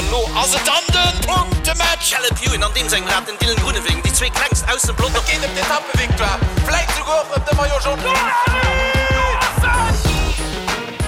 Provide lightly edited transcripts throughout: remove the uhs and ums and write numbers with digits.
An lo ass et dann de Punktematch! Caleb Ewan an deem sengem Rad, den Dylan Groenewegen, déi zwee klengst aus dem Pelotong. Et geet ëm d'Etappevictoire, vläit souguer och ëm de Maillot Jaune.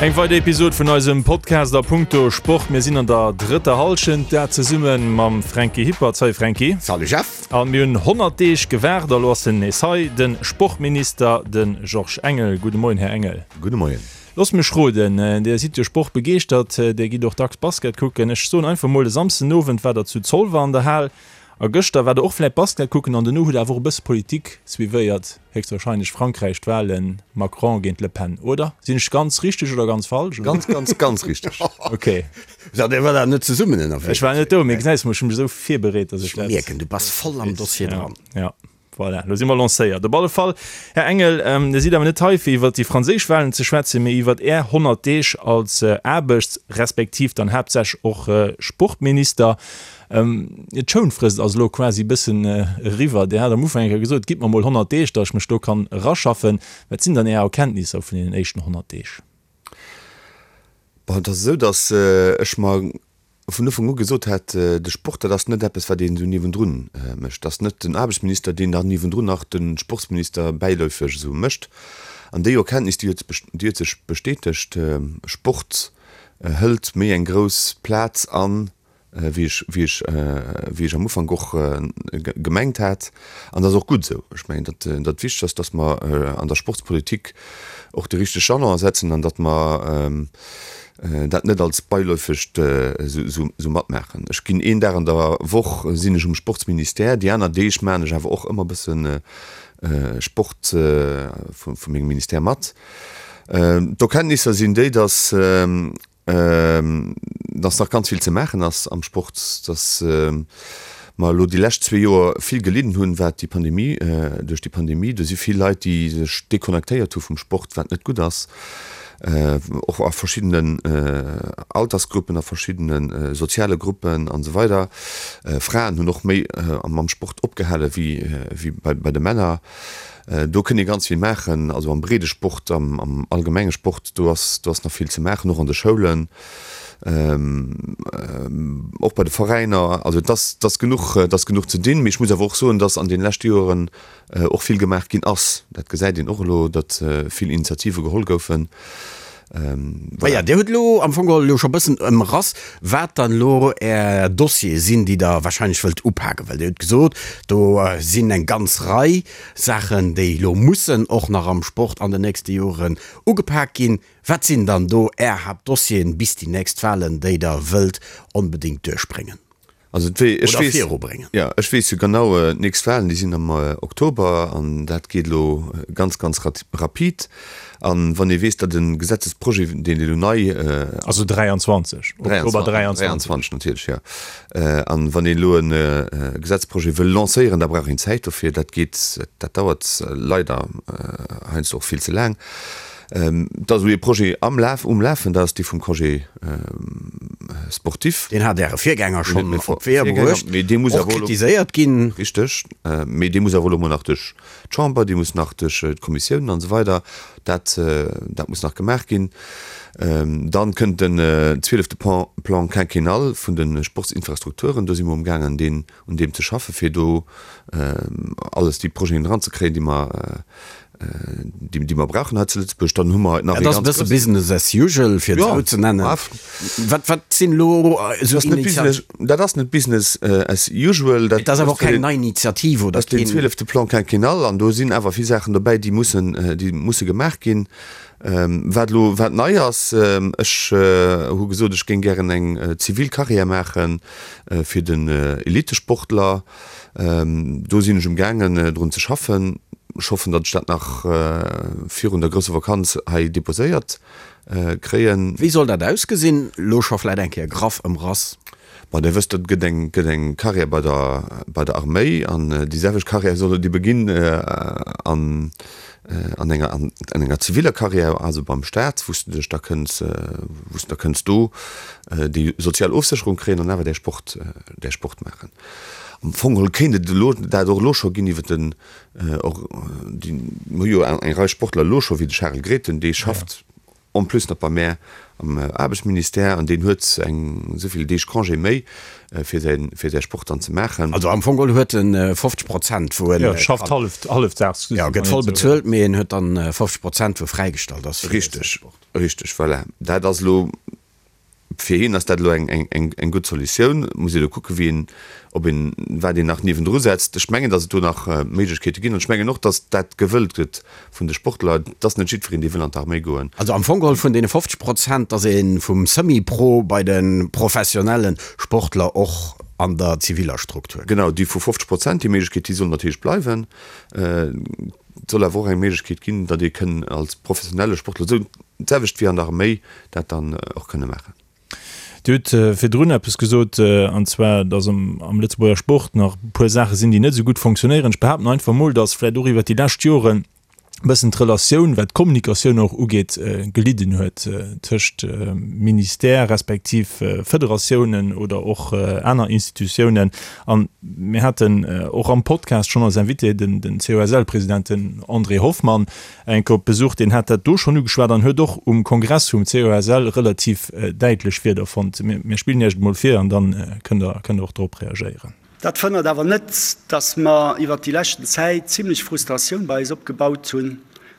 Eng weider Episod vun eisem Podcast a punkto Sport. Mir sinn an der drëtter Hallschent, dat zesumme mam Franky Hippert. Salut Franky. Salut Jeff. A mir hunn 100 Deeg gewaart a lo ass en nees hei, de Sportminister, de Georges Engel. Gudde Moien, Här Engel. Gudde Moien. Loosst mech roden, Dir sidd jo sportbegeeschtert, Dir gitt och dacks Basket kucken. Ech soen einfach mol, e Samsdenowend war der zu Zolwer an der Hal a gëschter war der och vläit Basket kucken an dono hutt der awer och e bësse Politik suivéiert, héchstwahrscheinlech Frankräich, d'Wahlen, Macron géint Le Pen, oder? Sinn ech ganz richteg oder ganz falsch? Ganz, ganz, ganz richteg. Ok. So, Dir war da net zesummen ënnerwee? Ech war net do, mee gesäis mol, ech hu mech esou virbereet, dass ech dat. Ech mierken, du bass voll am Dossier dran. Ja. Voilà, elo si mer lancéiert. Op alle Fall, Här Engel, Dir sidd awer net hei, fir iwwert déi franséisch Wahlen ze schwätzen, mee iwwert Är 100 Deeg als Aarbechts respektiv dann haaptsächlech och Sportminister. D'Schounfrist ass elo quasi e bëssen eriwwer. Dir hat am Ufank eng Kéier gesot, Gitt mer mol 100 Deeg, datt ech mech do kann eraschaffen. Wat sinn dann Är Erkenntnisser vun deenen éischten 100 Deeg? Bon, et ass esou, datt ech mer vun Ufank u gesot hat, de Sport, dat ass net eppes, wat een esou niewendrun mécht. Dat ass net den Aarbechtsminister, deen dann niewendrun nach de Sportsminister bäiläufeg esou mécht. An déi Erkenntnis, déi huet, déi huet sech bestätegt, Sport hëlt méi eng grouss Plaz an, wéi ech, wéi ech, wéi ech am Ufank och gemengt hat. An dat ass och gutt esou. Ech mengen, datt dat wichteg ass, datt mer an der Sportspolitik och de richtege Jalon setzen an datt mer dat net als beiläufegt esou matmaachen. Ech ginn een Dag an der Woch sinn ech um Sportsministère, déi aner Deeg maachen ech awer och ëmmer e bësse Sport vu mengem Ministère mat. D'Erkenntnisser sinn déi, datt datt nach ganz vill ze maachen ass am Sport, datt mer elo déi lescht zwee Joer vill gelidden hunn, wat déi Pandemie, duerch déi Pandemie. Do si vill Leit, déi sech deconnectéiert hu vum Sport, wat net gutt ass. och a verschiddenen Altersgruppen, a verschiddene soziale Gruppen an esou weider. Fraen hunn och méi mam Sport opgehale wéi bei de Männer. Do kënnt ee ganz vill maachen, also am breede Sport, am allgemenge Sport, do ass do ass nach vill ze maachen, och an de Schoulen, och bei de Veräiner. Also et ass et ass genuch et ass genuch ze dinn. Mee ech muss awer och soen, datt an deene leschte Joeren och vill gemaach ginn ass. Dat gesäit een och elo, datt vill Initiative geholl goufen. Voilà. Dir hutt elo am Fong geholl elo scho bëssen ëmrass, wat dann elo Är Dossiere sinn, déi Der wahrscheinlech wëllt upaken. Well Dir hutt gesot, do sinn eng ganz Rei Saachen, déi elo mussen och nach am Sport an den nächste Joren ugepak ginn. Wat sinn dann do Är Haaptdossieren bis déi nächst Wahlen, déi Der wëllt onbedéngt duerchbréngen? Also et wee, ech Oder weess, virubréngen. jo, ech weess jo genau, d'nächst Wahlen, déi sinn am Oktober an dat geet elo ganz, ganz rapid. An wann ee weess, datt e Gesetzesprojet, deen elo nei. Also 23, Oktober 23. 23 natierlech, jo. An wann een elo e Gesetzprojet wëll lancéieren, da brauch een Zäit dofir. Dat geet, dat dauert leider heiansdo och vill ze laang. Et ass elo ee Projet am Laf, um Lafen, dat ass dee vum Congé sportif. Deen hat Äre Virgänger schonn op d'Weeër bruecht, och kritiséiert ginn. Richteg, mee dee muss awer elo mol nach duerch d'Chamber, dee muss nach duerch d'Kommissiounen an esou weider. Dat, dat muss nach gemaach ginn. Dann kënnt den zwielefte Plan quinquennal vun de Sportsinfrastrukturen. Do si mer umgaangen, deen, un deem ze schaffen, fir do alles déi Projeten eranzekréien, déi mer, déi mer brauchen hei zu Lëtzebuerg, dann hu mer nach Dat ass e bësse Business as usual, fir et esou ze nennen. Wat, wat sinn elo esou Initiativen? Dat ass net Business as usual. Et ass awer och keng nei Initiativ oder keen. Dat ass den zwielefte Plan quinquennal an do sinn awer vill Saachen dobäi, déi mussen, déi musse gemaach ginn. Wat elo, wat nei ass, ech hu gesot, ech géing gären eng zivil Carrière maache fir den Elitesportler. Do sinn ech um gaangen drun ze schaffen. Ech hoffen, datt ech dat nach virun der grousser Vakanz hei deposéiert kréien. Wéi soll dat ausgesinn? Elo scho vläit eng Kéier graff ëmrass. Bon, Dir wësst, et gëtt eng, gëtt eng Carrière bei der, bei der Arméi an déi selwecht Carrière soll et ebe ginn an, an enger, an enger ziviller Carrière, also beim Staat, wou s de dech da kënns, wou s de da kënns do déi sozial Ofsécherung kréien an awer däi Sport, däi Sport maachen. Am Fong geholl kéint et elo dat och elo scho ginn iwwer den och déi, mir hu jo eng Rei Sportler elo scho wéi de Charel Grethen, dee schafft. En plus nach bei mär am Aarbechtsministère an deen huet eng esou vill Deeg Congé méi fir säi fir säi Sport dann ze maachen. Also am Fong geholl huet en 50 Prozent wou en. Jo, schafft hallef hallefdaags. Jo, gëtt voll bezuelt, mee en huet dann 50 Prozent wou fräigestallt ass fir säi Richteg, Sport. richteg, voilà. Dat ass elo Fir hien ass dat elo eng gutt Solutioun. Muss ee elo kucken, wéi een, ob een, wat een nach niewendru setzt. Ech mengen, datt et do nach Méiglechkeete ginn an ech mengen och, datt dat gewëllt gëtt vun de Sportler. Et ass net jiddwereen, dee wëll an d'Arméi goen. Also am Fong geholl vun deene 50 Prozent, datt ee vum Semi-Pro bei de professionelle Sportler och an der ziviller Struktur. Genau, déi vu 50 Prozent, déi Méiglechkeet, déi soll natierlech bleiwen. Et soll awer och eng Méiglechkeet ginn, datt ee kënn als professionelle Sportler, esou d'selwecht wéi an der Arméi, dat dann och kënne maachen. Dir hutt virdrun eppes gesot, an zwar, datt am Lëtzebuerger Sport nach e puer Saache sinn, déi net esou gutt fonctionnéieren. Ech behaapten einfach emol, datt vläicht och iwwert déi lescht Joren e bëssen d'Relatioun, wat d'Kommunikatioun och ugeet, gelidden huet tëscht Ministère respektiv Federatiounen oder och aner Institutiounen. An mir haten och am Podcast schonn als Invité den COSL-President, den André Hoffmann, eng Kéier op Besuch. Deen hat dat do schonn ugeschwat an huet och um Kongress vum COSL relativ däitlech Wierder fonnt. Mir spillen Iech et mol vir an dann kënnt Der kënnt Der och drop reagéieren. Dat verhënnert awer net, dass mer iwwert déi leschten Zäit zimlech Frustratioun bei eis opgebaut hunn,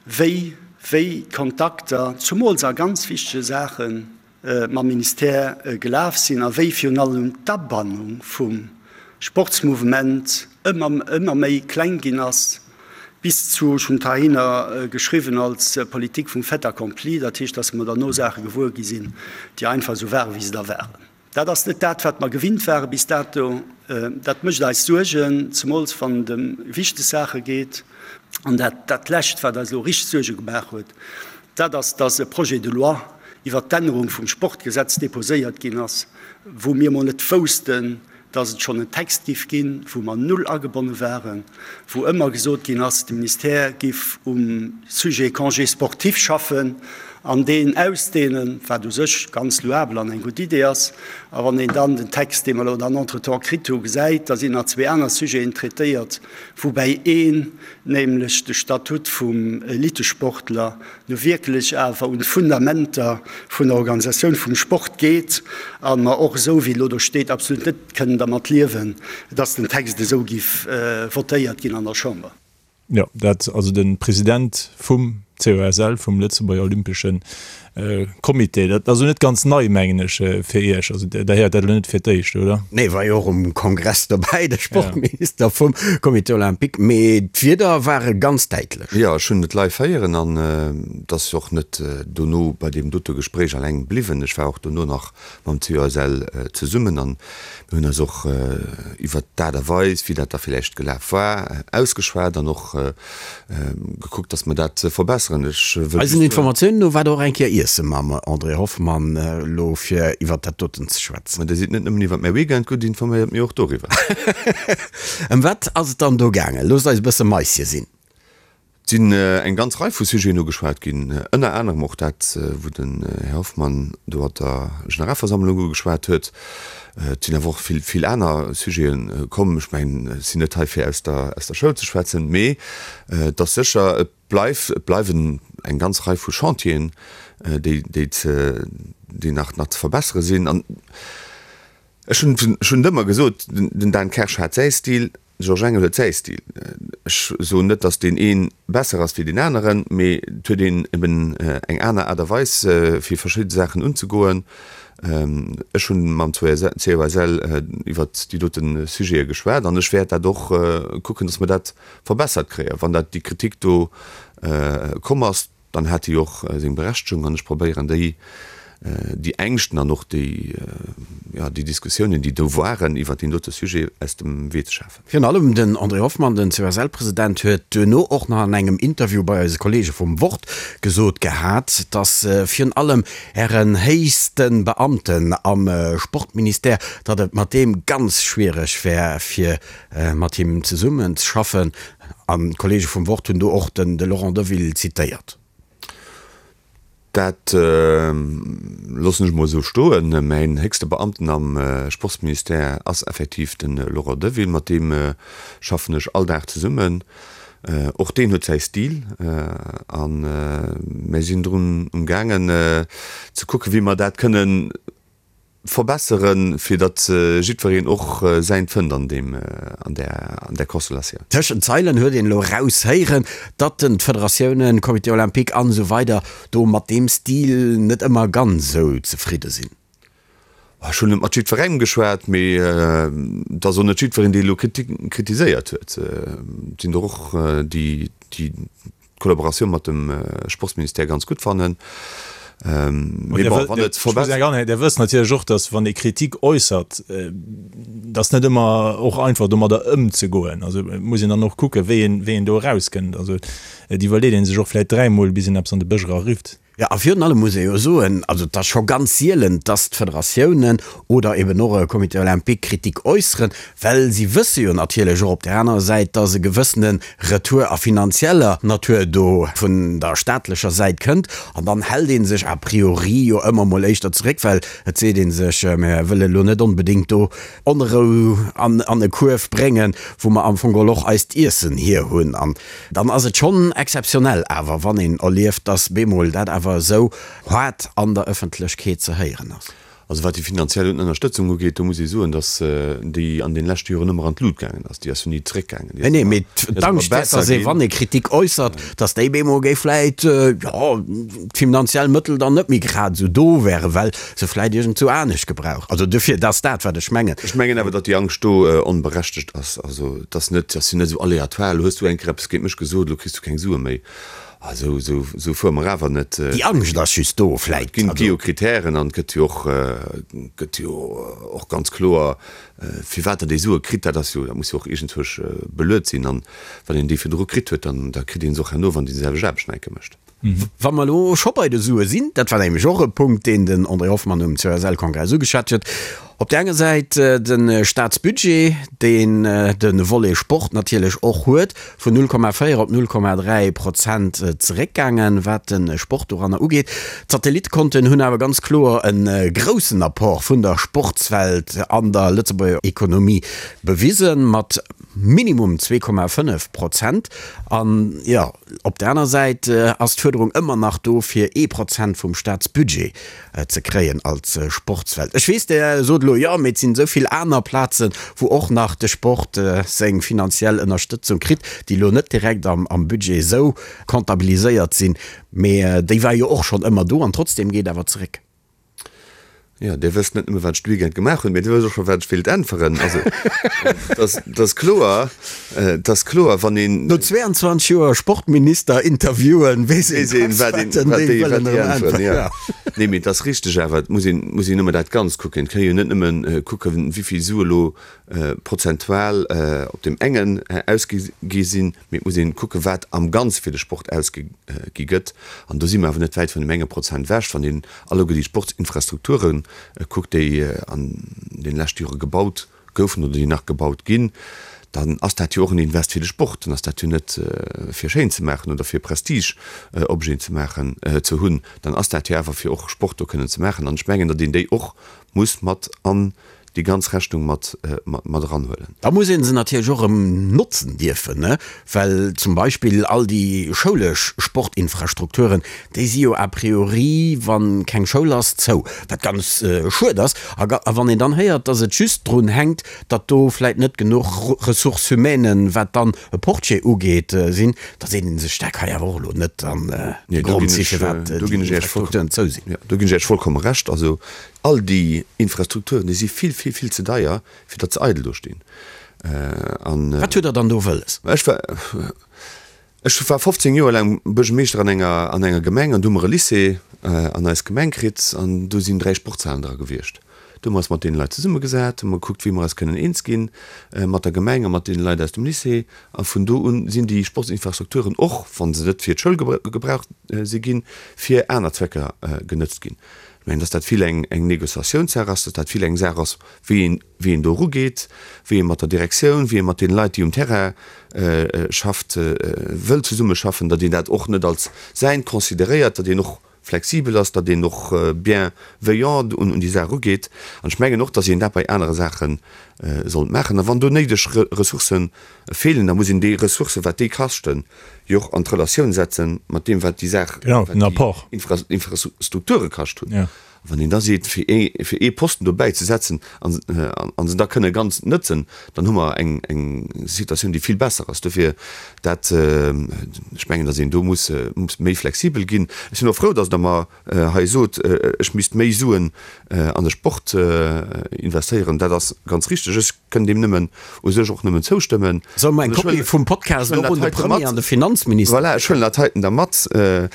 wéi wéi d'Kontakter, zumools a ganz wichtege Saachen, mam Ministère gelaf sinn a wéi virun allem d'Abannung vum Sportsmouvement ëmmer ëmmer méi kleng ginn ass, bis zu, ech hunn et heihinner geschriwwen, als Politik vum Fait accompli, dat heescht, dass mer derno Saache gewuer gi sinn, déi einfach esou waren, wéi se da waren. Dat ass net dat, wat mer gewinnt ware bis dato. Dat mécht eis Suergen, zemools wann et ëm wichteg Saache geet. An dat, dat Lescht, wat eis elo richteg Suerge gemaach huet, dat ass, dass e Projet de loi iwwert d'Ännerung vum Sportgesetz déposéiert ginn ass, wou mir emol net woussten, dass et schonn en Text giff ginn, wou mer null agebonne waren, wou ëmmer gesot ginn ass, de Ministère giff um Sujet Congé sportif schaffen an deen ausdehnen, wat u sech ganz louabel an eng gutt Idee ass. A wann een dann den Text, dee mer elo dann entretemps kritt hu, gesäit, da sinn nach zwee aner Sujeten traitéiert, woubäi een, nämlech de Statut vum Elitesportler, nu wierklech awer un d'Fundamenter vun der Organisatioun vum Sport geet a mer och esou wéi elo do steet absolut net kënnen dermat liewen, dass den Text esou giff votéiert ginn an der Chamber. Jo, dat also de President vum COSL, vum Lëtzebuerger Olympesche Comité. Dat ass elo net ganz nei, mengen ech, fir Iech. Also Der héiert dat elo net fir d'éischt, oder? Nee, war jo och um Kongress dobäi, de Sportminister vum Comité Olympique. Mee d'Wierder ware ganz däitlech. Jo, ech hunn et live héieren an et ass och net dono bei deem dote Gespréich alleng bliwwen. Ech war och dono nach mam COSL zesummen an mir hunn eis och iwwert d'Aart a Weis, wéi dat da villäicht gelaf war, ausgeschwat an och gekuckt, dass mer dat verbesseren. Ech wëll Eisen Informatiounen no war Der och eng Kéier iesse mam André Hoffmann elo fir iwwert dat doten ze schwätzen. Ma Dir sidd net nëmmen iwwert mäi Weekend gutt informéiert, mee och doriwwer. Ëm wat ass et dann do gaangen? Loosst eis e bësse Maisje sinn. Et sinn eng ganz Rei vu Sujeten ugeschwat ginn, ënner anerem och dat, wou den Här Hoffmann do op der Generalversammlung ugeschwat huet. Et sinn awer och vill, vill aner Sujete komm. Ech mengen, ech sinn net hei fir aus der, aus der Schoul ze schwätzen, mee et ass sécher, et bleift, et bleiwen eng ganz Rei vu Chantieren, déi, déi ze, déi nach, nach ze verbessere sinn. An ech hunn, ech hunn et ëmmer gesot, den Dan Kersch hat säi Stil, De Georges Engel huet säi Stil. Ech soen net, datt deen ee besser ass wéi deen aneren, mee et huet een eben eng aner Aart a Weis, fir verschidde Saachen unzegoen. Ech hu mam COSL iwwert déi dote Sujete geschwat an ech wäert dat och kucken, datt mer dat verbessert kréien. Wann dat déi Kritik do komm ass, Dann hat déi och seng Berechtegung an ech probéieren déi, déi Ängschten an och déi, jo, déi Diskussiounen, déi do waren iwwert deen dote Sujet, aus dem Wee ze schafen. Virun allem den André Hoffmann, den COSL-President, huet duerno och nach an engem Interview bei eise Kollege vum Wort gesot gehat, datt virun allem Ären héichste Beamten am Sportministère, datt et mat deem ganz schwiereg wär, fir mat him zesummen ze schaffen. An d'Kollege vum Wort hunn do och den de Laurent Deville zitéiert. Dat loossen ech emol esou stoen. Mäin héchste Beamten am Sportsministère ass effektiv de Laurent Deville. Mat deem schaffen ech all Dag zesummen. Och deen huet säi Stil a mir sinn drun um gaangen ze kucken, wéi mer dat kënnen verbesseren, fir datt jiddwereen och säint fënnt an deem, an där, an där Konstellatioun. Tëschent d'Zeilen huet een elo eraushéieren, datt den d'Federatiounen, Comité olympique an esou weider do mat deem Stil net ëmmer ganz esou zefridde sinn. Ech hunn net mat jiddwerengem geschwat, mee et ass och net jiddwereen, dee elo kritiséiert huet. Et sinn der och, déi d'Kollaboratioun mat dem Sportsministère ganz gutt fannen. Mee bon, wann et verbessert. Dir wësst natierlech och, datt wann ee Kritik äussert, et ass net ëmmer och einfach domadder ëmzegoen. Also et muss een dann och kucken, wéi een do erauskënnt. Also et iwwerleet ee sech och vläicht dräimol, bis een eppes an de Bësch erarifft. Jo, a virun allem muss ee jo soen, also et ass scho ganz sielen, dass d'Federatiounen oder eben och e Comité olympique Kritik äusseren, well si wësse jo natierlech och op där anerer Säit, dass e gewëssene Retour a finanzieller Natur do vun der staatlecher Säit kënnt. An dann hält ee sech a priori jo ëmmer mol éischter zeréck, well et seet ee sech, mir wëlle lo net onbedéngt do Onrou an e Kuerf bréngen, wou mer am Fong geholl och eist Iessen hierhunn. An Dann ass et schonn exzeptionell awer, wann een erlieft, dass bemol dat awer esou haart an der Ëffentlechkeet ze héieren ass. Also wat déi finanziell Ënnerstëtzung ugeet, do muss ee soen, dass déi an deene leschte Joren ëmmer an d'Lut gaangen ass. Déi ass jo ni zeréckgaangen. Déi ass ëmmer, déi ass ëmmer D'Angscht, besser dass ee, ginn. wann ee Kritik äussert, dass déi bemol géif vläit, jo, d'finanziell Mëttel dann net méi grad esou do wären, well se vläit iergendzou anescht gebraucht. Also duerfir, dat ass dat, wat ech mengen. Ech mengen awer, datt déi Angscht do onberechtegt ass. Also et ass net, ass jo net esou aleatoire, elo hues du eng Kéier eppes géint mech gesot, elo kriss du keng Sue méi. Ah, esou, esou, esou fuere mer awer net. Déi Angscht ass just do vläit. Et ginn, gi jo Kritären an et gëtt jo och, gëtt jo och ganz kloer, firwat Der déi Sue kritt. Dat ass jo, dat muss jo och iergendzwousch beluet sinn. An wann een déi virdru kritt huet, dann, da kritt ee se och herno, wann déi selwecht Aarbecht nach eng Kéier mécht. Wa mer elo scho bei de Sue sinn, dat war nämlech och e Punkt, deen den André Hoffmann um COSL-Kongress ugeschwat huet, op där enger Säit de Staatsbudget, deen de Volet Sport natierlech och huet, vun 0,4 op 0,3 Prozent zeréckgaangen, wat de Sport doranner ugeet. D'Satellittekonten hunn awer ganz kloer e groussen Apport vun der Sportswelt an der Lëtzebuerger Ekonomie bewisen, mat minimum 2,5 Prozent. An, jo, Op der aner Säit ass d'Fuerderung ëmmer nach do, fir ee Prozent vum Staatsbudget ze kréien als Sportswelt. Ech weess, Der sot elo, jo, mee et sinn esou vill aner Plazen, wou och nach de Sport seng finanziell Ënnerstëtzung kritt, déi elo net direkt am Budget esou comptabiliséiert sinn, mee déi war jo och schonn ëmmer do an trotzdeem geet awer zeréck. Jo, Dir wësst net nëmme wat ech de Weekend gemaach hunn, mee Dir wësst och scho wat ech wéilt äntweren. Also, et ass kloer, et ass kloer, wann een. No 22 Joer Sportminister interviewen, weess een dacks, wat den déi wëllen erëm äntweren. Jo. Nee, mee et ass richteg awer, et muss een, muss een ëmmer dat Ganzt kucken. Et kann ee jo net nëmme kucken, wéi vill Sue elo prozentual op deem engen ausgi gi sinn, mee et muss een kucken, wat am Ganze fir de Sport ausgi gëtt. An do si mer awer net wäit vun deem enge Prozent ewech, wann een alleguer déi Sportsinfrastrukture kuckt, déi an deene leschte Jore gebaut goufen oder déi nach gebaut ginn, dann ass dat jo och en Invest fir de Sport. Dann ass dat jo net fir schéin ze maachen oder fir Prestigeobjeten ze maachen, ze hunn, dann ass dat jo awer fir och Sport do kënnen ze maachen. An ech mengen, datt een déi och muss mat an déi ganz Rechnung mat mat eranhuelen. Da muss ee se natierlech och erëm notzen dierfen, ne? Well zum Beispill all déi schoulesch Sportinfrastrukturen, déi si jo a priori, wa keng Schoul ass, zou, wat ganz schued ass. A wann een dann héiert, datt et just drun hänkt, datt do vläit net genuch Ressources humaines, wat dann e Portier ugeet, sinn, da seet ee sech, dat ka jo awer och elo net dann de Grond si firwat déi Infrastrukturen zou sinn. Do ginn ech Iech vollkomme Recht. Also All déi Infrastrukturen, déi si vill, vill, vill ze deier, fir datt se eidel do stinn. An. Wat hutt Der dann do wëlles? Ech war, ech war 15 Joer laang Buergermeeschter an enger, an enger Gemeng an do hu mer e Lycée an eis Gemeng kritt an do sinn 3 Sportshalen dra gewiescht. Do hu mer eis mat deene Leit zesummegesat, hu mer gekuckt, wéi mer eis kënnen eens ginn mat der Gemeng a mat deene Leit aus dem Lycée. A vun do un sinn déi Sportsinfrastrukturen, och wa se net fir d'Schoul gebraucht si ginn, fir aner Zwecker genëtzt ginn. Ech mengen, dass dat vill eng Négociatiounssaach ass, dass dat vill eng Saach ass, wéi een, wéi een do erugeet, wéi ee mat der Direktioun, wéi ee mat deene Leit, déi um Terrain schafft, wëll zesummeschaffen, datt een dat och net als säint consideréiert, datt een och. flexibel ass, datt een och bienveillant un déi Saach erugeet. An ech mengen och, datt een dat bei anere Saache sollt maachen. A wann do néideg Ressourcë feelen, da muss een déi Ressourcë, wat déi kaschten, jo och an d'Relatioun setze mat deem, wat déi Saach, wat déi Infrastrukture kascht hunn. Wann een da seet, fir ee, fir ee Posten dobäi ze setzen an, an se da kënne ganz nëtzen, dann hu mer eng, eng Situatioun, déi vill besser ass. Dofir dat, ech mengen, datt een do muss, muss méi flexibel ginn. Ech sinn och frou, datt Der mer hei sot, ech misst méi Suen an de Sport investéieren. Dat ass ganz richteg. Ech kënn deem nëmmen, u sech och nëmmen zoustëmmen. Solle mer eng Kopie vum Podcast och un de Premier an de Finanzminister. Voilà, ech huelen dat heiten da mat. Well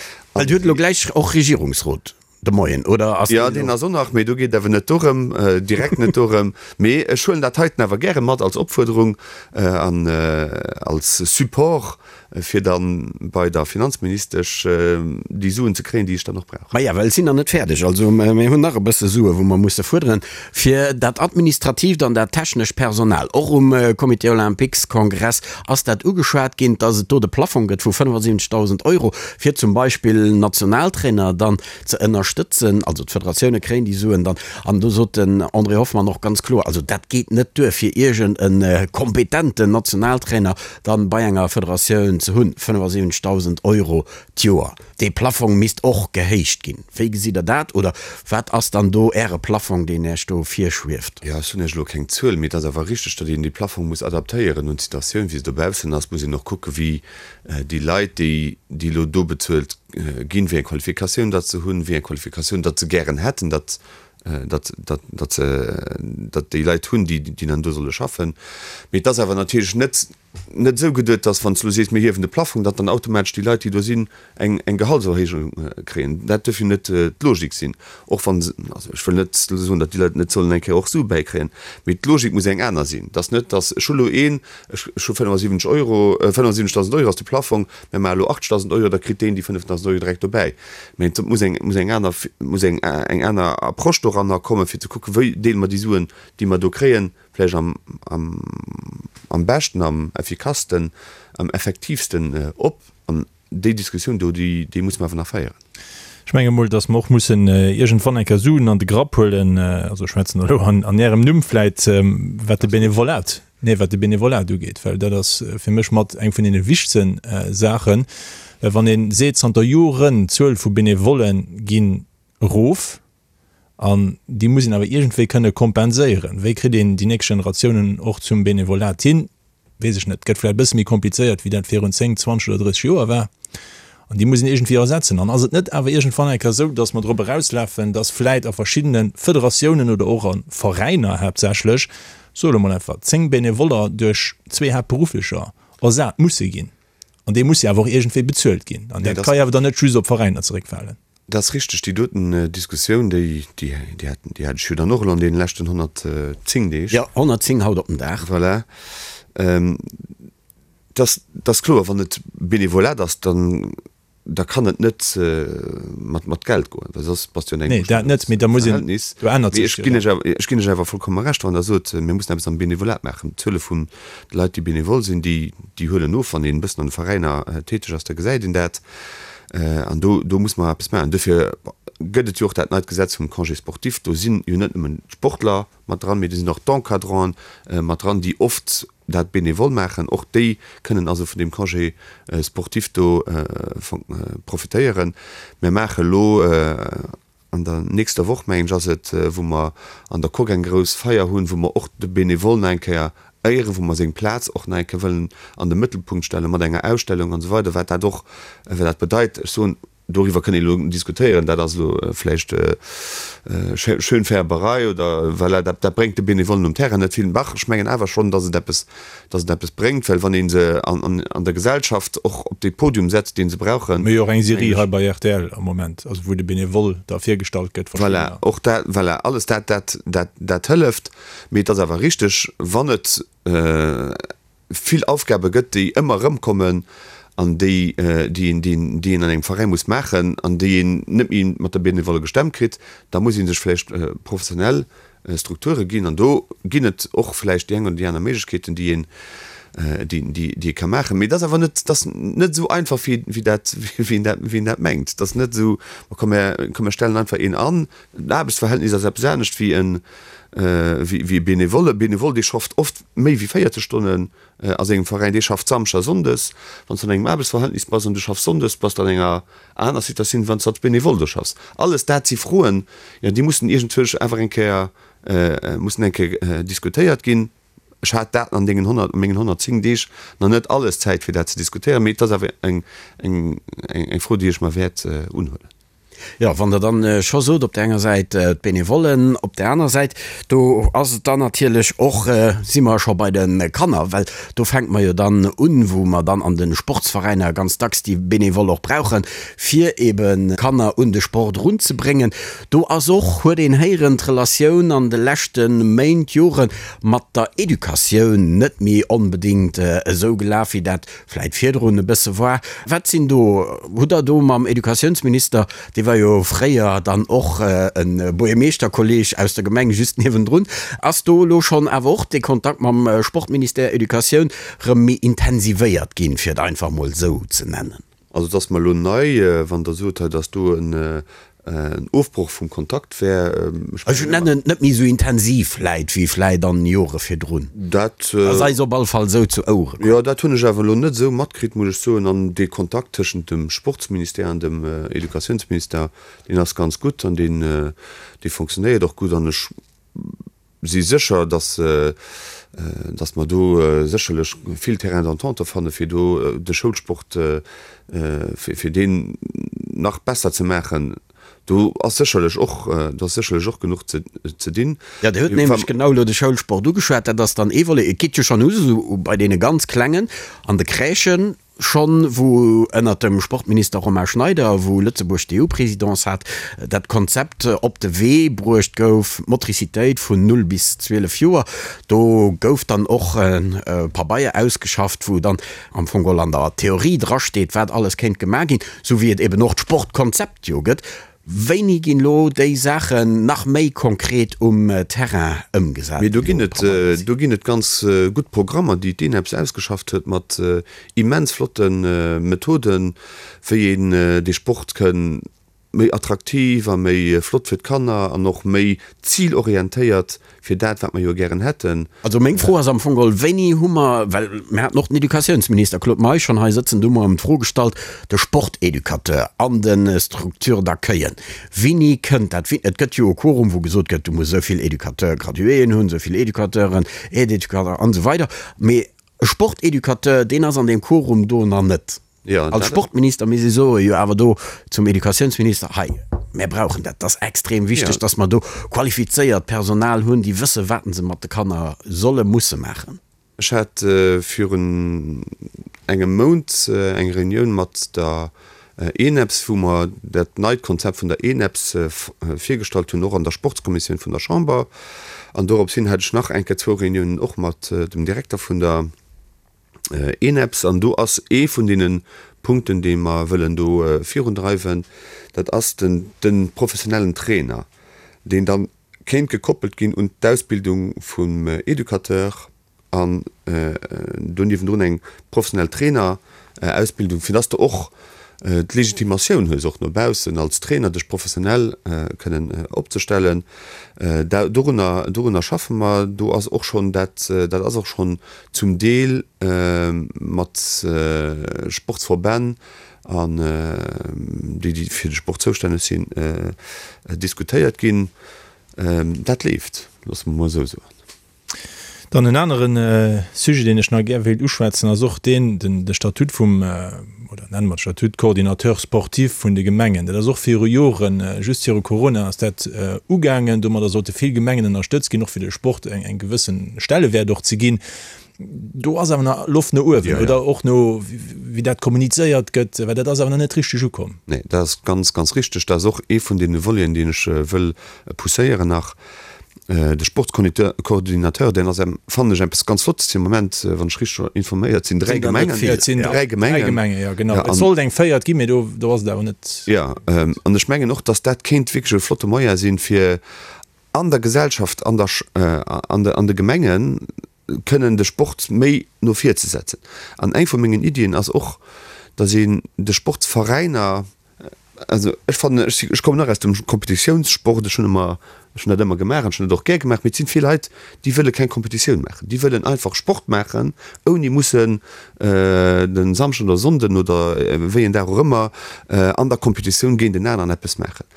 Dir hutt elo gläich och Regierungsrot. De Moien, oder ass Jo, deen ass och nach, mee do geet et awer net dorëm, direkt net dorëm. Mee ech huelen dat heiten awer gäre mat als Opfuerderung an als Support, fir da bei der Finanzministesch déi Suen ze kréien, déi ech dann och brauch. Maja, well et sinn nach net fäerdeg. Also mir hunn nach e bësse Sue wou mer musse fuerderen fir dat administratiivt an dat technescht Personal. Och um Comité Olympiques-Kongress ass dat ugeschwat ginn, dass et do de Plafong gëtt vu 75.000 Euro, fir zum Beispill Nationaltrainer dann ze ënnerstëtzen. Also d'Federatioune kréien déi Suen dann. An do sot den André Hoffmann och ganz kloer, also dat geet net duer, fir iergend e kompetenten Nationaltrainer dann bei enger Federatioun ze hunn, 75.000 Euro d'Joer. Dee Plafong misst och gehéicht ginn. Wéi gesitt Der dat? Oder wat ass dann do Äre Plafong, deen Iech do virschwieft? Jo, ech hunn Iech elo keng Zuel, mee et ass awer richteg, datt een dee Plafong muss adaptéieren un d'Situatioun, wéi se dobaussen ass. Muss een och kucken, wéi déi Leit, déi déi elo do bezuelt ginn, wéi eng Qualifikatioun datt se hunn, wéi eng Qualifikatioun datt se gären hätten, datt datt datt se datt déi Leit hunn, déi déi dann do solle schaffen. Mee et ass awer natierlech net net esou geduet, dass wann s du elo sees, mir hiewen de Plafong, datt dann automatesch déi Leit, déi do sinn, eng eng Gehaltserhéijung kréien. Dat duerf jo net d'Logik sinn, och wa se, also ech wëll net elo soen, datt déi Leit net sollen eng Kéier och Sue bäikréien, mee d'Logik muss eng aner sinn. Dass net, dass ech hu elo een, ech ech hu 75 Euro, 75.000 Euro ass de Plafong, mir maache elo 80.000 Euro, da kritt deen déi 5.000 Euro direkt dobäi. Mee et muss eng muss eng aner muss eng eng aner Approche doranner kommen, fir ze kucken, wéi deele mer déi Suen, déi mer do kréien, vläicht am, am, am beschten, am effikassten, am effektiivsten op. An déi Diskussioun do, déi, déi muss mer awer nach féieren. Ech menge mol, datt mer och mussen iergendwann eng Kéier Suen an de Grapp huelen, also ech schwätzen elo an, an Ärem Numm vläit, wat de Benevolat, nee, wat de Benevolat ugeet, well dat ass fir mech mat eng vun deene wichtegsten Saachen, well wann ee seet, zanter Joren d'Zuel vu Benevolle ginn erof, An déi muss een awer iergendwéi kënne kompenséieren. Wéi kritt een déi nächst Generatiounen och zum Benevolat hin? Weess ech net. Gëtt vläicht e bësse méi komplizéiert, wéi dat virun 10, 20 oder 30 Joer war. An déi muss een iergendwéi ersetzen. An ass et net awer iergendwann eng Kéier esou, datt mer drop erauslafen, datt vläicht a verschiddene Federatiounen oder och a Veräiner haaptsächlech, soe elo mol einfach, 10 Benevoller duerch zwee Haaptberufflecher ersat musse ginn? An déi musse jo awer och iergendwéi bezuelt ginn. An dat ka jo awer dann net just op d'Veräiner zeréckfalen. Dat ass richteg, déi doten Diskussioun, déi, déi, déi hat, déi hat ech jo dann och elo an deene leschten 110 Deeg. Jo, 110 haut op den Dag. Voilà. Et ass, et ass kloer, wann et Benevolat ass, dann, da kann et net mat, mat Geld goen, well soss bass du an engem Nee, dat net, mee da muss een, Verhältnis. do ännert Mee sech ech ginn lech awer, ech ginn lech awer vollkomme Recht, wann Der sot, mir mussen eppes am Benevolat maachen. D'Zuele vun de Leit, déi benevol sinn, déi, déi huelen of. Wann een e bëssen an de Veräiner täteg ass, da gesäit een dat. An do, do muss mer eppes maachen. Duerfir gëtt et jo och dat neit Gesetz vum Congé sportif. Do sinn jo net nëmmen d'Sportler mat dran, mee do sinn och d'Encadranten mat dran, déi oft dat bénévol maachen. Och déi kënnen also vun deem Congé sportif do profitéieren. Mir maache elo An der nächster Woch, mengen ech, ass et, wou mer an der Coque eng grouss Feier hunn, wou mer och de Benevole nach eng Kéier éieren, wou mer seng Plaz och nach eng Kéier wëllen an de Mëttelpunkt stellen, mat enger Ausstellung an esou weider, wat dat och, wat dat bedeit. Ech soen, doriwwer kënnt een elo diskutéieren, dat ass elo vläicht Schönfärberei oder voilà, dat, dat bréngt de Benevollen um Terrain net vill. Dach, ech mengen awer schonn, dass et eppes, dass et eppes bréngt, well wann ee se an, an der Gesellschaft och op dee Podium setzt, dee se brauchen. Mir hu jo och eng Serie hei bei rtl am Moment, also wou de Benevole da virgestallt gëtt, verschiddener. Voilà, och dat, voilà, alles dat, dat, dat, dat hëlleft. Mee et ass awer richteg, wann et vill Aufgabe gëtt, déi ëmmer erëmkommen an déi, déi een, déi een, déi een an engem Veräi muss maachen an déi een net méi mat der Benevole gestemmt kritt, da muss ee sech vläicht professionell Strukture ginn. An do ginn et och vläicht déi eng oder déi aner Méiglechkeeten, déi een. déi, déi, déi ee ka maachen. Mee et ass awer net, et ass net esou einfach, wéi, wéi dat, wéi een dat, wéi een dat mengt. Et ass net esou, ma komm mir, komm mir stellen einfach een an. En Aarbechtsverhältnis ass eppes anescht wéi en, wéi, wéi e Benevole. E Benevole, dee schafft oft méi wéi 40 Stonnen a sengem Veräin, dee schafft Samschdes a Sonndes. Wann s de an engem Aarbechtsverhältnis bass an du schaffs Sonndes, bass de an enger aner Situatioun, wéi wann s de als Benevole do schaffs. Alles dat si Froen, jo, déi mussen iergendwousch awer eng Kéier, mussen eng Kéier diskutéiert ginn. Ech hat dat an deenen 100, a mengen 110 Deeg nach net alles Zäit fir dat ze diskutéieren, mee et ass awer eng, eng, eng Fro, déi ech mer wäert unhuelen. Jo, wann Der dann scho sot, op där enger Säit d'Benevollen, op där aner Säit, do ass et dann natierlech och, si mer scho bei de Kanner, well do fänke mer jo dann un, wou mer dann an de Sportsveräiner ganz dacks déi Benevole och brauchen, fir ebe Kanner un de Sport erunzebréngen. Do ass och, huet een héieren, d'Relatioun an de leschte Méint, Jore mat der Educatioun net méi onbedéngt esou gelaf, wéi dat vläit virdrun e bësse war. Wat sinn do, hutt Der do mam Educatiounsminister, dee war jo fréier dann och e Buergermeeschterkolleg aus der Gemeng just niewendrun, ass do elo schonn awer och dee Kontakt mam Sportministère, Educatioun, rëm méi intensivéiert ginn, fir et einfach mol esou ze nennen? Also et ass mer elo nei, wann Der sot hei, datt do en Ofbroch vum Kontakt wär. Ech nennen et net méi esou intensiv vläit wéi vläit an Jore virdrun. Dat ass eis op all Fall esou zu Ouere komm. Jo, dat hunn ech awer elo net esou matkritt, muss ech soen. An dee Kontakt tëschent dem Sportsministère an dem Educatiounsministère, deen ass ganz gutt an deen, dee fonctionnéiert och gutt. An ech si sécher, dass, dass mer do sécherlech vill Terrain d'entente fanne fir do de Schoulsport, fir, fir deen nach besser ze maachen. Do ass sécherlech och, do ass sécherlech och genuch ze, ze dinn. Jo, Dir hutt nämlech genau elo de Schoulsport ugeschwat. Dat ass dann ee Volet. Et geet jo schonn u sou bei deene ganz Klengen an de Crèchen. Schonn wou ënnert dem Sportminister Romain Schneider, wou Lëtzebuerg d'EU-Présidence hat, dat Konzept op de Wee bruecht gouf, Motricitéit vun 0 bis 12 Joer, do gouf dann och e Pabeier ausgeschafft, wou dann am Fong geholl an der Theorie drasteet, wat alles kéint gemaach ginn, sou wéi et eben och d'Sportkonzept jo gëtt. Wéini ginn elo déi Saachen nach méi konkret um Terrain ëmgesat? Mee do ginn et, do ginn et ganz gutt Programmer, déi d'ENEPS ausgeschafft huet mat immens flotte Methoden, wéi een dee Sport kënn méi attraktiv a méi flott fir d'Kanner an och méi zilorientéiert fir dat, wat mer jo gären hätten. Also meng Fro ass am Fong geholl, Wéini hu mer, well mir haten och den Educatiounsminister Claude Meisch schonn hei sëtzen, do hu mer ëm d'Fro gestallt, de Sporteducateur an de Structures d'accueillen, wéini kënnt dat? Et gëtt jo e Quorum, wou gesot gëtt, du muss esou vill Educateur-graduéen hunn, esou vill Educateuren, Aide-éducateurs an esou weider. Mee e Sporteducateur, deen ass an deem Quorum do nach net. Als Sportminister misst ee soen, jo awer do zum Educatiounsminister, hei, mär brauchen dat, dat ass extrem wichteg, datt mer do qualifizéiert Personal hunn, déi wësse wat se mat de Kanner solle, musse maachen. Ech hat virun engem Mount eng Reunioun mat der ENEPS, wou mer dat neit Konzept vun der ENEPS virgestallt hunn, och an der Sportskommissioun vun der Chamber. An dorops hin hat ech nach eng Kéier zwou Reuniounen och mat dem Direkter vun der ENEPS, an do ass ee vun deene Punkten, dee mer wëllen do virundreiwen, dat ass den de professionellen Trainer, deen da kéint gekoppelt ginn un d'Ausbildung vum Educateur an do niewendrun eng professionell Trainerausbildung, fir dass de och d'Legitimatioun hues, och no baussen als Trainer dech professionell kënnen opzestellen. Dorunner, dorunner schaffe mer. Do ass och schonn dat, dat ass och schonn zum Deel mat Sportsverbänn an déi, déi fir de Sport zoustänneg sinn, diskutéiert ginn. Dat leeft, loosse mer emol esou soen. Dann en anere Sujet, deen ech nach gär wéilt uschwätzen, ass och deen, den de Statut vum, oder nenne mer et Statut Coordinateur sportif vun de Gemengen. Dat ass och viru Joren, just viru Corona ass dat ugaangen. Domadder sollte vill Gemengen ënnerstëtzt ginn, och fir de Sport eng eng gewësse Stellewäert och ze ginn. Do ass awer nach Loft no uewen, oder och no wéi dat kommunizéiert gëtt, well dat ass awer nach net richteg ukomm. Nee, dat ass ganz, ganz richteg. Dat ass och ee vun deene Voleten, deen ech wëll pousséieren nach. De Sportscoordinateur, deen ass, fannen ech, eppes ganz Flottes fir de Moment, wann ech richteg informéiert sinn, 3 Gemengen. Et sinn 3 Gemengen, jo genau. Et sollt eng véiert ginn, mee do do ass et awer net. Jo, an ech mengen och, datt dat kéint wierklech e flotte Moyen sinn, fir an der Gesellschaft, an der, an de, an de Gemengen. kënnen de Sport méi no vir ze setzen. An eng vu mengen Iddien ass och, datt een de Sportsveräiner, also ech fannen, ech si, ech kommen och aus dem Kompetitiounssport, ech hunn ëmmer, ech hunn dat ëmmer gemaach an ech hunn dat och gär gemaach, mee et sinn vill Leit, déi wëlle keng Kompetitioun maachen, déi wëllen einfach Sport maachen, ouni mussen de Samschden oder Sonnden oder wéi en Dag och ëmmer an der Kompetitioun géint en aneren eppes maachen.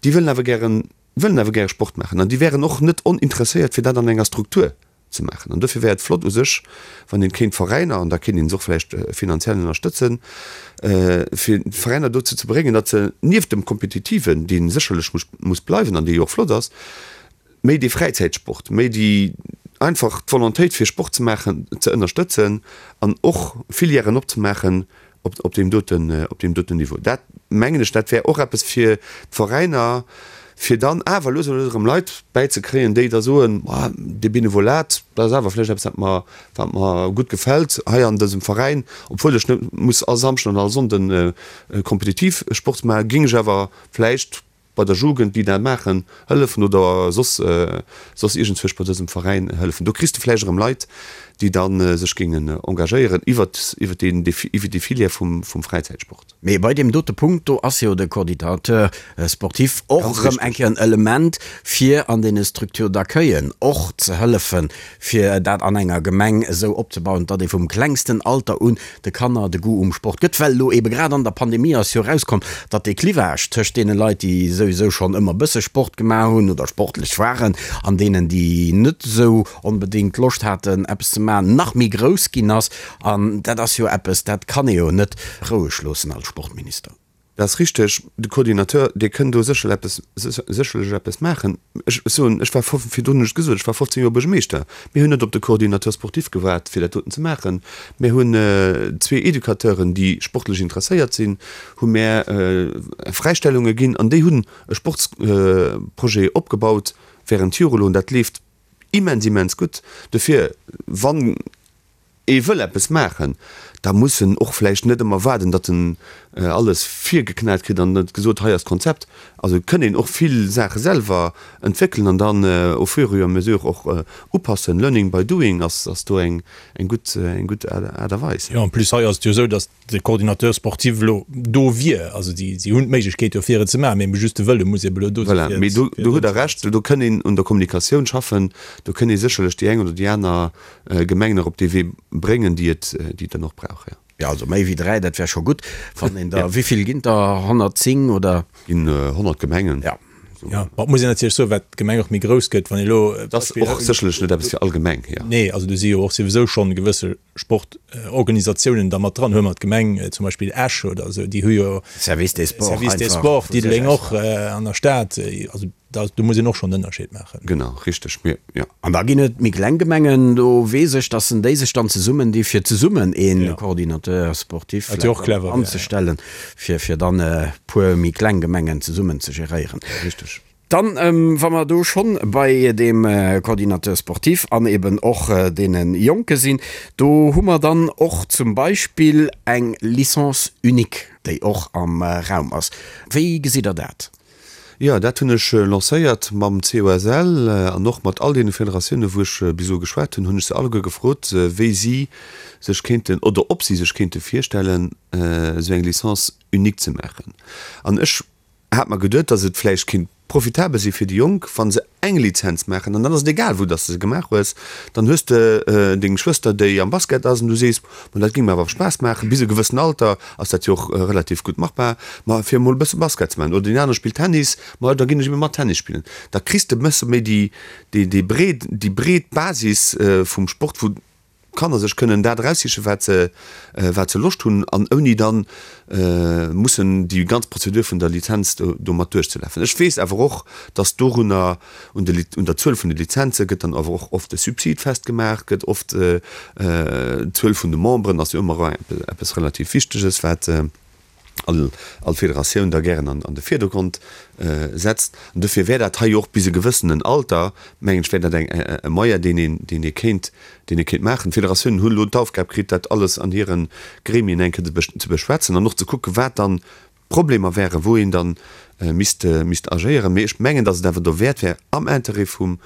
Déi wëllen awer gären, wëllen awer gäre Sport maachen an déi wären och net oninteresséiert, fir dat an enger Struktur ze maachen. An dofir wär et flott u sech, wann een kéint d'Veräiner, an da kéint een se och vläicht finanziell ënnerstëtzen, fir d'Veräiner dozou ze bréngen, datt se nieft dem Kompetitiven, dee sécherlech muss, muss bleiwen an dee jo och flott ass, méi dee Fräizäitsport, méi déi einfach d'Volontéit fir Sport ze maachen ze ënnerstëtzen an och Filièren opzemaachen op, op deem doten, op deem doten Niveau. Dat mengen ech, dat wär och eppes fir d'Veräiner, fir dann awer lues a lues erëm Leit bäizekréien, déi da soen, Ma dee Benevolat, dat ass awer vläicht eppes, wat mer, wat mer gutt gefält hei an dësem Veräin, obwuel ech net muss all Samschden an all Sonnden kompetitiv Sport maachen, géing ech awer vläicht bei der Jugend, déi dat maachen, hëllefen oder soss, soss iergendzwousch bei dësem Veräin hëllefen. Do kriss de vläicht erëm Leit, déi da sech géingen engagéieren iwwert, iwwert deen, iwwert déi Filière vum, vum Fräizäitsport. Mee bei deem dote Punkt do ass jo de Coordinateur sportif och Ganz erëm eng richtig. Kéier en Element, fir an deene Structures d'accueillen och ze hëllefen, fir dat an enger Gemeng esou opzebauen, datt ee vum klengsten Alter un de Kanner de Goût um Sport gëtt. Well elo eebe grad an der Pandemie ass jo erauskomm, datt dee Clivage tëscht deene Leit, déi souwisou schonn ëmmer bësse Sport gemaach hunn oder sportlech waren, an deenen, déi net esou onbedéngt Loscht haten, eppes ze maachen, nach méi grouss ginn ass. An dat ass jo eppes, dat kann ee jo net roueg loossen als Sportminister. Dat ass richteg. De Coordinateur, dee kënn do sécherl eppes, sécherlech eppes maachen. Ech soen, ech war virdrun hunn ech et gesot, ech war 15 Joer Buergermeeschter. Mir hunn net op de Coordinateur sportif gewaart, fir dat doten ze maachen. Mir hunn zwee Educateuren, déi sportlech interesséiert sinn, hu mär Fräistellunge ginn an déi hunn e Sportsprojet opgebaut während Jore elo an dat leeft immens, immens gutt. Dofir, wann ee wëll eppes maachen, da muss en och vläicht net ëmmer waarden, datt en alles virgeknat kritt an et gesot, hei ass d'Konzept. Also et kënn een och vill Saache selwer entwéckelen an dann au fur et à mesure och upassen. Learning by doing ass do eng gutt, eng gutt Aart a Weis. Jo, en plus hei ass et jo esou, datt de Coordinateur sportif elo do wier. Also si hunn d'Méiglechkeet jo fir et ze maachen, mee just de Wëlle muss ebe elo do sinn. Voilà, mee do hutt Der Recht, do kënn een un der Kommunikatioun schaffen, do kënn ee sécherlech déi eng oder déi aner Gemeng nach op dee Wee bréngen, déi et, déi et dann och brauch, jo. Jo, also méi wéi 3, dat wär scho gutt. Wann een der, wéi vill ginn der? 110 oder? Ginn 100 Gemengen. Ja. Jo, ma et muss een natierlech soen, wat d'Gemeng och méi grouss gëtt, wann ee elo. Dat ass och sécherlech net eppes fir all Gemeng, jo. Nee, also do si jo och souwisou schonn gewësse Sportorganisatiounen da mat dran. Huele mer d'Gemeng zum Beispill Esch oder esou, déi hu jo. Service des Sports einfach. Service des Sports, Diddeleng och an der Stad. Also Da, do muss een och schonn en Ënnerscheed maachen. Genau, richteg, mir, jo. An da ginn et méi kleng Gemengen, do weess ech, dass en déi sech dann zesummen di fir zesummen ee Coordinateur sportif vläicht dann anzestellen, fir, fir dann e puer méi kleng Gemengen zesummen ze geréieren. Richteg. Dann, wa mer do schonn bei deem Coordinateur sportif an eben och deene Jonke sinn, do hu mer dann och zum Beispill eng Licence unique, déi och am Raum ass. Wéi gesitt Der dat? Jo, dat hunn ech lancéiert mam COSL an och mat all deene Federatiounen, wou ech bis elo geschwat hunn, hunn ech se alleguer gefrot, wéi si sech kéinten oder ob si sech kéinte virstellen, esou eng Licence unique ze maachen. An ech hat mer geduet, datt et vläicht kéint profitabel si fir déi Jonk, wa se eng Lizenz maachen an dann ass et egal, wou dass de se gemaach hues, dann hues de deng Schwëster, déi am Basket ass an du sees, ma dat géing mer awer Spaass maachen, bis e gewëssen Alter ass dat jo och relativ gutt machbar, ma fir emol e bësse Basket ze maachen oder deen anere spillt Tennis, ma da ginn ech ebe mat Tennis spillen. Da kriss de e bësse méi déi, déi, déi breet, déi breet Basis vum Sport, wou d'Kanner sech kënnen dat eraussichen, wat se, wat se Loscht hunn, an ouni dann mussen déi ganz Prozedur vun der Lizenz do, domat duerchzelafen. Ech weess awer och, dass dorunner, un de, un der Zuel vun de Lizenze gëtt dann awer och oft e Subsid festgemaach, gëtt oft d'Zuel vun de Memberen ass jo ëmmer eppes relativ Wichteges, wat all all Federatioun da gären an an de Virdergrond setzt. An dofir wär dat hei och bis e gewëssenen Alter, mengen ech, wär dat eng e Moyen, deen een deen ee kéint deen ee kéint maachen. D'Federatiounen hunn elo d'Aufgab kritt, dat alles an hire Gremien eng Kéier ze beschwätzen an och ze kucken, wat dann d'Problemer wären, wou een dann misst misst agéieren. Mee ech mengen, datt et awer dowäert wär am Intérêt vum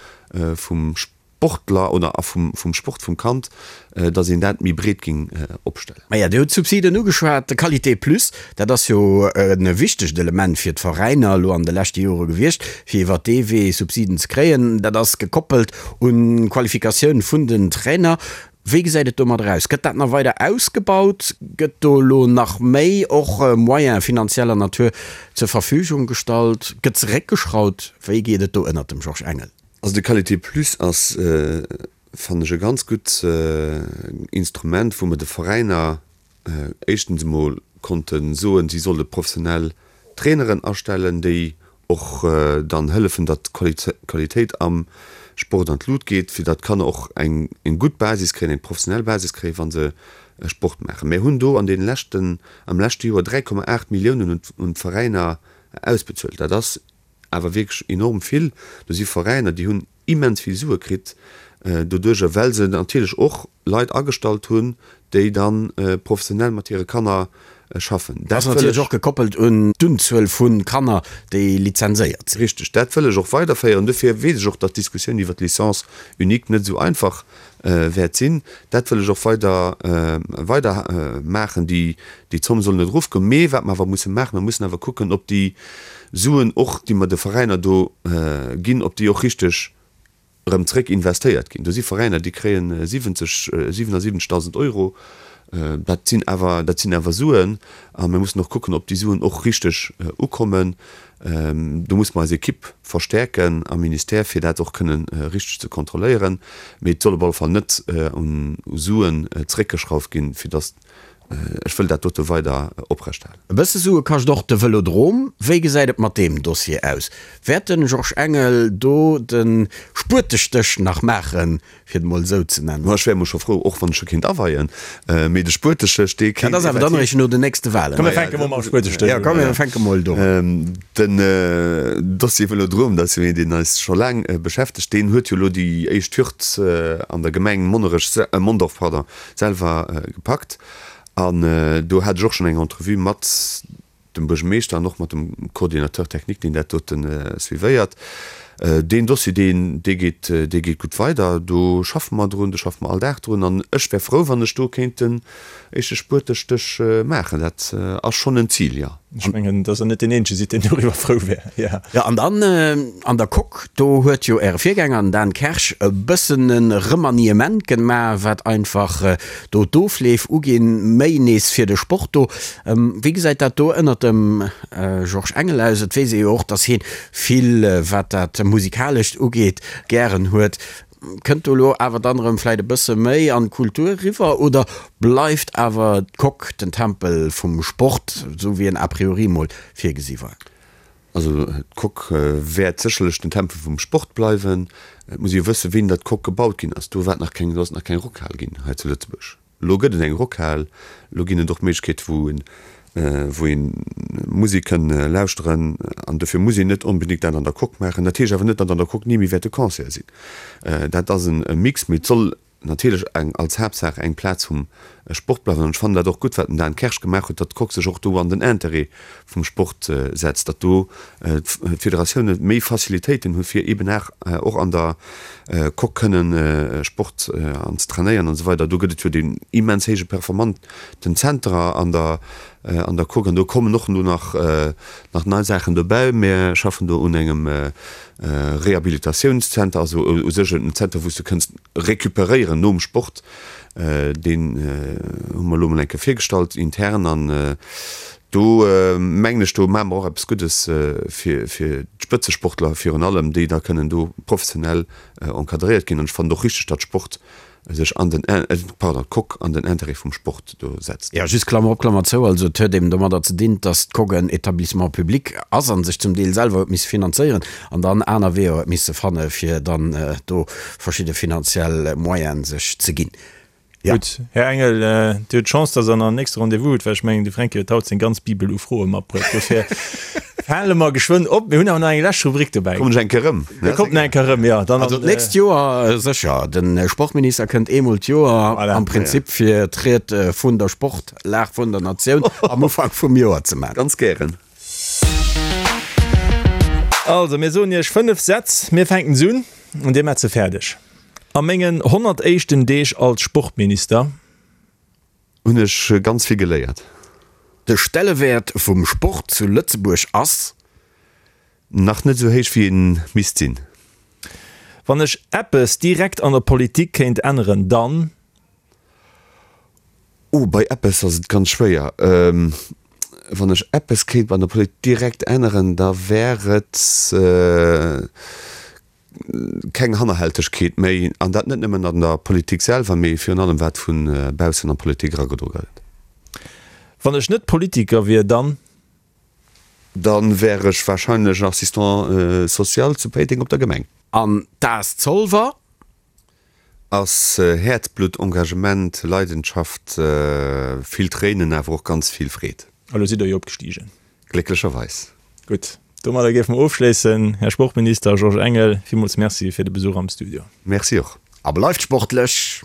vum. Sportler oder a vum vum Sport vum Kand, datt een dat méi breet géing opstellen. Maja, Dir hutt d'Subsiden ugeschwat. De Qualité Plus, dat ass jo e wichtegt Element fir d'Veräiner elo an de leschte Jore gewiescht, fir iwwert dee Wee Subsiden ze kréien. Dat ass gekoppelt un d'Qualifikatioun vun den Trainer. Wéi gesäit et domadder aus? Gëtt dat nach weider ausgebaut? Gëtt do elo nach méi och Moyen finanzieller Natur zur Verfügung gestallt? Gëtt zeréckgeschraut? Wéi geet et do ënnert dem Georges Engel? Also de Qualité Plus ass, fannen ech, e ganz gutt Instrument, wou mer de Veräiner éischtens emol konnte soen, si solle professionell Traineren astellen, déi och dann hëllefen, datt d'Qualitéit am Sport an d'Lut geet, fir datt d'Kanner och eng gutt Basis kréien, eng professionell Basis kréien, wa se Sport maachen. Mir hunn do an deene leschten, am leschte Joer 3,8 Milliounen un d'Veräiner ausbezuelt. Dat ass awer wierklech enorm vill. Do si Veräiner, déi hunn immens vill Sue kritt doduerjer, well se natierlech och Leit agestallt hunn, déi da professionell mat hire Kanner schaffen. Dat ass natierlech och gekoppelt un d'Unzuel vu Kanner, déi lizenséiert sinn. Richteg. Dat wëll ech och weiderféieren. Dofir weess ech och, datt d'Diskussioun iwwer d'Licence unique net esou einfach wäert sinn. Dat wëll ech och weider weider maachen. Déi Zomm soll net erofgoen. Mee wat mer awer musse maachen, mer mussen awer kucken, ob déi Suen och, déi mer de Veräiner do ginn, ob déi och richteg erëm zréck investéiert ginn. Do si Veräiner, déi kréien 70, 77.000 Euro. Dat sinn awer, dat sinn awer Suen. A mir mussen och kucken, ob déi Suen och richteg ukommen. Do musse mer eis Ekipp verstäerken am Ministère, fir dat och kënnen richteg ze kontrolléieren. Mee et soll op alle Fall net un Suen zréckgeschrauft ginn, fir datt Ech wëll dat dote weider oprechthalen. E bësse Sue kascht och de Vëlodrom. Wéi gesäit et mat deem Dossier aus? Wäert de Georges Engel do de Spuetestéch nach maachen, fir et mol esou ze nennen? Ech wär emol scho frou, och wann ech scho kéint aweien, mee de Spuetestéch, dee kéint. Dat ass awer dann eréischt no den nächste Walen. Komm mir fänke mol mam Spuetestéch un. Jo, komm mir fänke mol do un. Den Dossier Vëlodrom, dat ass jo een, deen eis scho laang beschäftegt. Deen huet jo elo déi éischt Hürd an der Gemeng Monnerech, Mondorf, pardon, selwer gepackt an do hat ech och schonn eng Entrevue mat dem Buergermeeschter an och mat dem Coordinateur technique, deen dat dote suivéiert. Deen Dossier, deen, dee geet, dee geet gutt weider. Do schaffe mer drun, do schaffe mer all Dag drun an ech wär frou, wann ech do kéint den éischte Spuetestéch maachen. Dat ass schonn en Zil, jo. Ech mengen, dass Der net deen Eenzege sidd, deen doriwwer frou wär, jo. Jo, an dann an der Coque, do huet jo Äre Virgänger, den Dan Kersch, e bëssen e Remaniement gemaach, wat einfach do d'Ofleef uginn, méi nees fir de Sport do. Wéi gesäit dat do ënnert dem Georges Engel aus? Et weess ee jo och, dass hie vill, wat dat Musikalescht ugeet, gären huet. Kënnt do elo awer dann erëm vläit e bësse méi an d'Kultur eriwwer oder bleift awer d'Coque den Tempel vum Sport, esou wéi en a priori mol virgesi war? Also d'Coque wäert sécherlech den Tempel vum Sport bleiwen. Et muss ee jo wëssen, wéini datt d'Coque gebaut ginn ass. Do war et nach keng, do ass et nach keng Rockhal ginn hei zu Lëtzebuerg. Elo gëtt et eng Rockhal, elo ginn et och Méiglechkeete wou een wou een Musek kënn lauschteren an dofir muss een net onbedéngt dat an der Coque maachen. Dat heescht awer net, datt an der Coque ni méi wäerte Concerte sinn. Dat ass e Mix, mee et soll natierlech eng als Haaptsaach eng Plaz vum Sport bleiwen an ech fannen dat och gutt, wat den Dan Kersch gemaach huet, datt d'Coque sech och do an den Interêt vum Sport setzt, datt do d'Federatioune méi Facilitéiten hu fir eben och an der Coque kënnen Sport an ze trainéieren an esou weider. Do gëtt et jo deen immens héije performanten Zenter an der an der Coque an do kommen och elo nach nach nei Saachen dobäi. Mir schaffen do un engem Rehabilitatiounszenter, also u sech en Zenter wou s de kënns recuperéieren nom Sport. Deen hu mer elo mol eng Kéier virgestallt intern an do mengen ech, do maache mer och eppes Guddes fir d'Spëtzesportler virun allem, déi da kënnen do professionell encadréiert ginn. An ech fannen et och richteg, datt Sport sech an den, pardon, d'Coque an den Intérêt vum Sport do setzt. Jo, just Klammer op, Klammer zou, also et huet eben domadder ze dinn, datt d'Coque en Établissement public ass a sech zum Deel selwer huet misse finanzéieren an dann aner Weeër huet misse fanne fir dann do verschidde finanziell Moyene sech ze ginn. Jo. Gutt, Här Engel, Dir hutt d'Chance, dass Der nach en nächste Rendez-vous hutt, well ech mengen, de Fränki huet haut seng ganz Bibel u Froe matbruecht. Dofir hale mer geschwënn op. Mir hunn awer nach eng lescht Rubrik dobäi. Kommen ech eng Kéier erëm? Dir kommt nach eng Kéier erëm, jo. Dann Also d'nächst Joer sécher. De Sportminister kënnt eemol d'Joer am Prinzip fir d'Ried vun der Sportlag vun der Natioun am Ufank vum Joer ze maachen. Ganz gären. Also, mir soen Iech 5 Sätz. Mir fänken se un an Dir maacht se fäerdeg. A mengen 100 éischten Deeg als Sportminister. Hunn ech ganz vill geléiert. De Stellewäert vum Sport zu Lëtzebuerg ass. Nach net esou héich wéi en misst sinn. Wann ech eppes direkt an der Politik kéint änneren, dann. Oh, bei eppes ass et ganz schwéier. Wann ech eppes kéint an der Politik direkt änneren, da wär et keng Hannerhältegkeet méi, an dat net nëmmen an der Politik selwer, mee virun allem wat vu baussen an d'Politik eragedro gëtt. Wann ech net Politiker wier, dann. Dann wär ech wahrscheinlech Assistant social zu Péiteng op der Gemeng. An d'AS Zolwer? Ass Häerzblutt, Engagement, Leidenschaft, vill Tréinen, awer och ganz vill Freed. A lo sidd der jo opgestigen. Glécklecherweis. Gutt, domadder géife mer ofschléissen. Här Sportminister Georges Engel, villmools Merci fir de Besuch am Studio. Merci och. A bleift sportlech!